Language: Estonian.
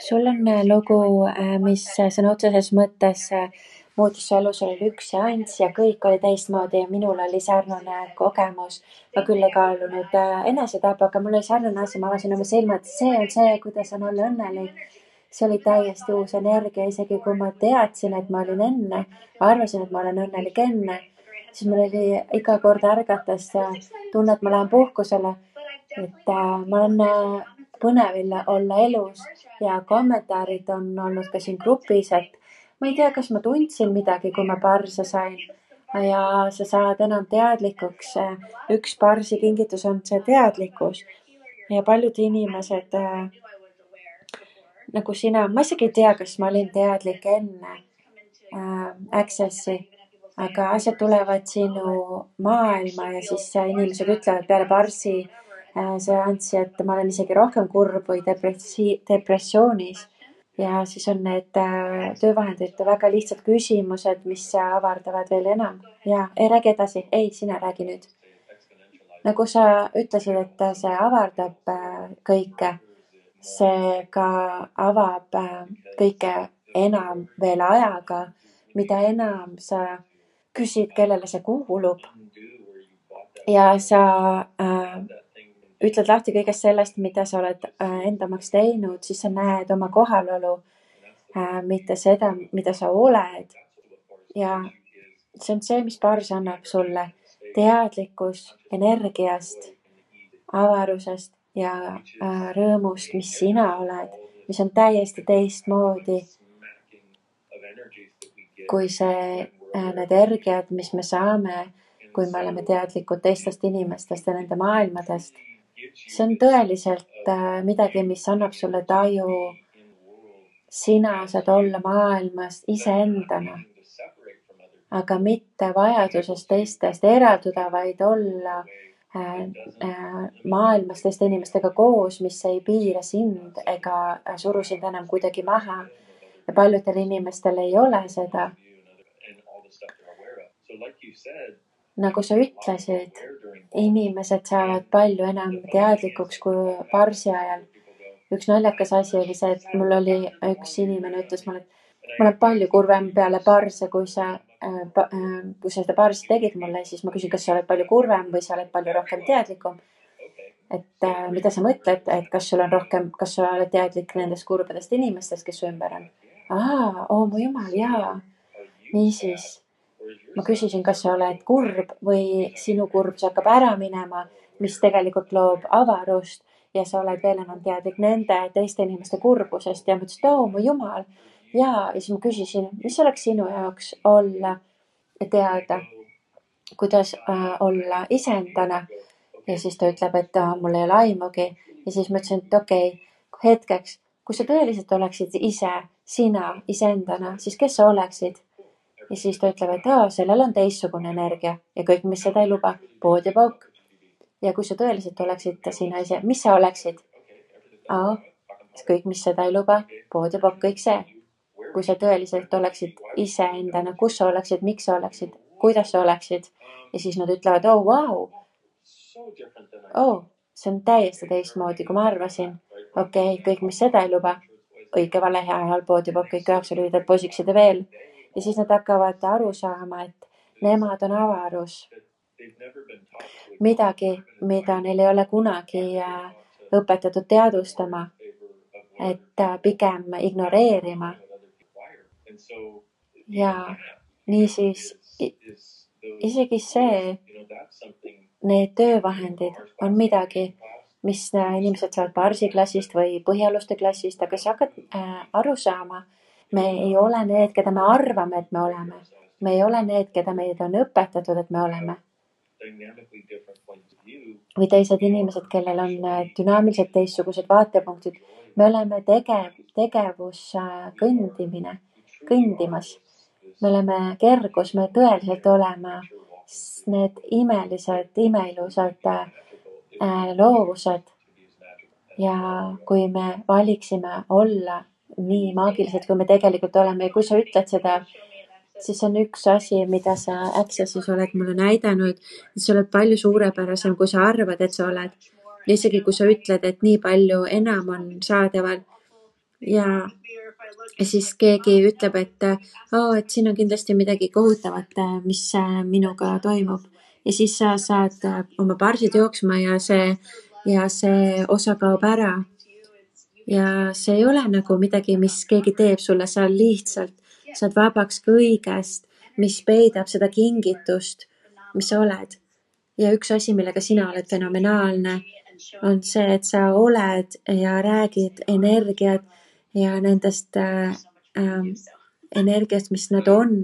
sul on lugu, mis sõna otseses mõttes muutis su elu, sul oli üks seanss ja kõik oli teistmoodi ja minul oli sarnane kogemus. Ma küll ei kaalunud enesetapu, aga mul oli sarnane asi, ma avasin oma silmad, see on see, kuidas on olla õnnelik. See oli täiesti uus energia, isegi kui ma teadsin, et ma olin enne, arvasin, et ma olen õnnelik enne, siis mul oli iga kord ärgates tunne, et ma lähen puhkusele, et ma olen põnevil olla elus ja kommentaarid on olnud ka siin grupis, et ma ei tea, kas ma tundsin midagi, kui ma parse sain ja sa saad enam teadlikuks. Üks parsi kingitus on see teadlikkus ja paljud inimesed nagu sina, ma isegi ei tea, kas ma olin teadlik enne Accessi, aga asjad tulevad sinu maailma ja siis inimesed ütlevad peale parsi seanssi, et ma olen isegi rohkem kurb või depressioonis. Ja siis on need töövahendid väga lihtsad küsimused, mis avardavad veel enam. Ja ei räägi edasi. Ei, sina räägi nüüd. Nagu sa ütlesid, et see avardab kõike. See ka avab kõike enam veel ajaga, mida enam sa küsid, kellele see kuulub. Ja sa ütled lahti kõigest sellest, mida sa oled endamaks teinud, siis sa näed oma kohalolu, mitte seda, mida sa oled. Ja see on see, mis pars annab sulle teadlikkus energiast, avarusest ja rõõmust, mis sina oled, mis on täiesti teistmoodi kui need energiat, mis me saame, kui me oleme teadlikud teistest inimestest ja nende maailmadest. See on tõeliselt midagi, mis annab sulle taju. Sina saad olla maailmas iseendana, aga mitte vajadusest teistest eralduda, vaid olla maailmas teiste inimestega koos, mis ei piira sind ega suru sind enam kuidagi maha. Ja paljudel inimestel ei ole seda. Nagu sa ütlesid, inimesed saavad palju enam teadlikuks kui parsi ajal. Üks naljakas asi oli see, et mul oli üks inimene ütles mulle, et ma olen palju kurvem peale parse, kui sa seda parsi tegid mulle, siis ma küsin, kas sa oled palju kurvem või sa oled palju rohkem teadlikum. Et mida sa mõtled, et kas sul on rohkem, kas sa oled teadlik nendest kurbadest inimestest, kes su ümber on? Mu jumal, jaa. Niisiis, ma küsisin, kas sa oled kurb või sinu kurbus hakkab ära minema, mis tegelikult loob avarust ja sa oled veel enam teadlik nende teiste inimeste kurbusest ja ma ütlesin, mu jumal. Ja siis ma küsisin, mis oleks sinu jaoks olla ja teada, kuidas olla iseendana. Ja siis ta ütleb, et mul ei ole aimugi. Ja siis ma ütlesin, et okei, hetkeks, kui sa tõeliselt oleksid ise, sina iseendana, siis kes sa oleksid? Ja siis ta ütleb, et sellel on teistsugune energia ja kõik, mis seda ei luba, pood ja pauk. Ja kui sa tõeliselt oleksid sina ise, mis sa oleksid? Kõik, mis seda ei luba, pood ja pauk, kõik see. Kui sa tõeliselt oleksid iseendana, kus sa oleksid, miks sa oleksid, kuidas sa oleksid. Ja siis nad ütlevad, vau. See on täiesti teistmoodi, kui ma arvasin. Okei, kõik, mis seda ei luba, õige, vale, hea, halb, pood ja pauk, kõik 9 lühidalt poisiksid ja veel. Ja siis nad hakkavad aru saama, et nemad on avarus. Midagi, mida neil ei ole kunagi õpetatud teadvustama, et pigem ignoreerima. Ja niisiis isegi see, need töövahendid on midagi, mis inimesed saavad parsiklassist või põhialuste klassist, aga sa hakkad aru saama, me ei ole need, keda me arvame, et me oleme. Me ei ole need, keda meid on õpetatud, et me oleme. Või teised inimesed, kellel on dünaamiliselt teistsugused vaatepunktid. Me oleme tegevus kõndimas. Me oleme kergus, me tõeliselt oleme need imelised, imeilusad loovused. Ja kui me valiksime olla nii maagilised, kui me tegelikult oleme ja kui sa ütled seda, siis on üks asi, mida sa Accessis oled mulle näidanud, et sa oled palju suurepärasem, kui sa arvad, et sa oled. Ja isegi kui sa ütled, et nii palju enam on saadaval, ja siis keegi ütleb, et siin on kindlasti midagi kohutavat, mis minuga toimub. Ja siis sa saad oma parsid jooksma ja see osa kaob ära. Ja see ei ole nagu midagi, mis keegi teeb sulle, sa lihtsalt saad vabaks kõigest, mis peidab seda kingitust, mis sa oled. Ja üks asi, millega sina oled fenomenaalne, on see, et sa oled ja räägid energiat ja nendest energiast, mis nad on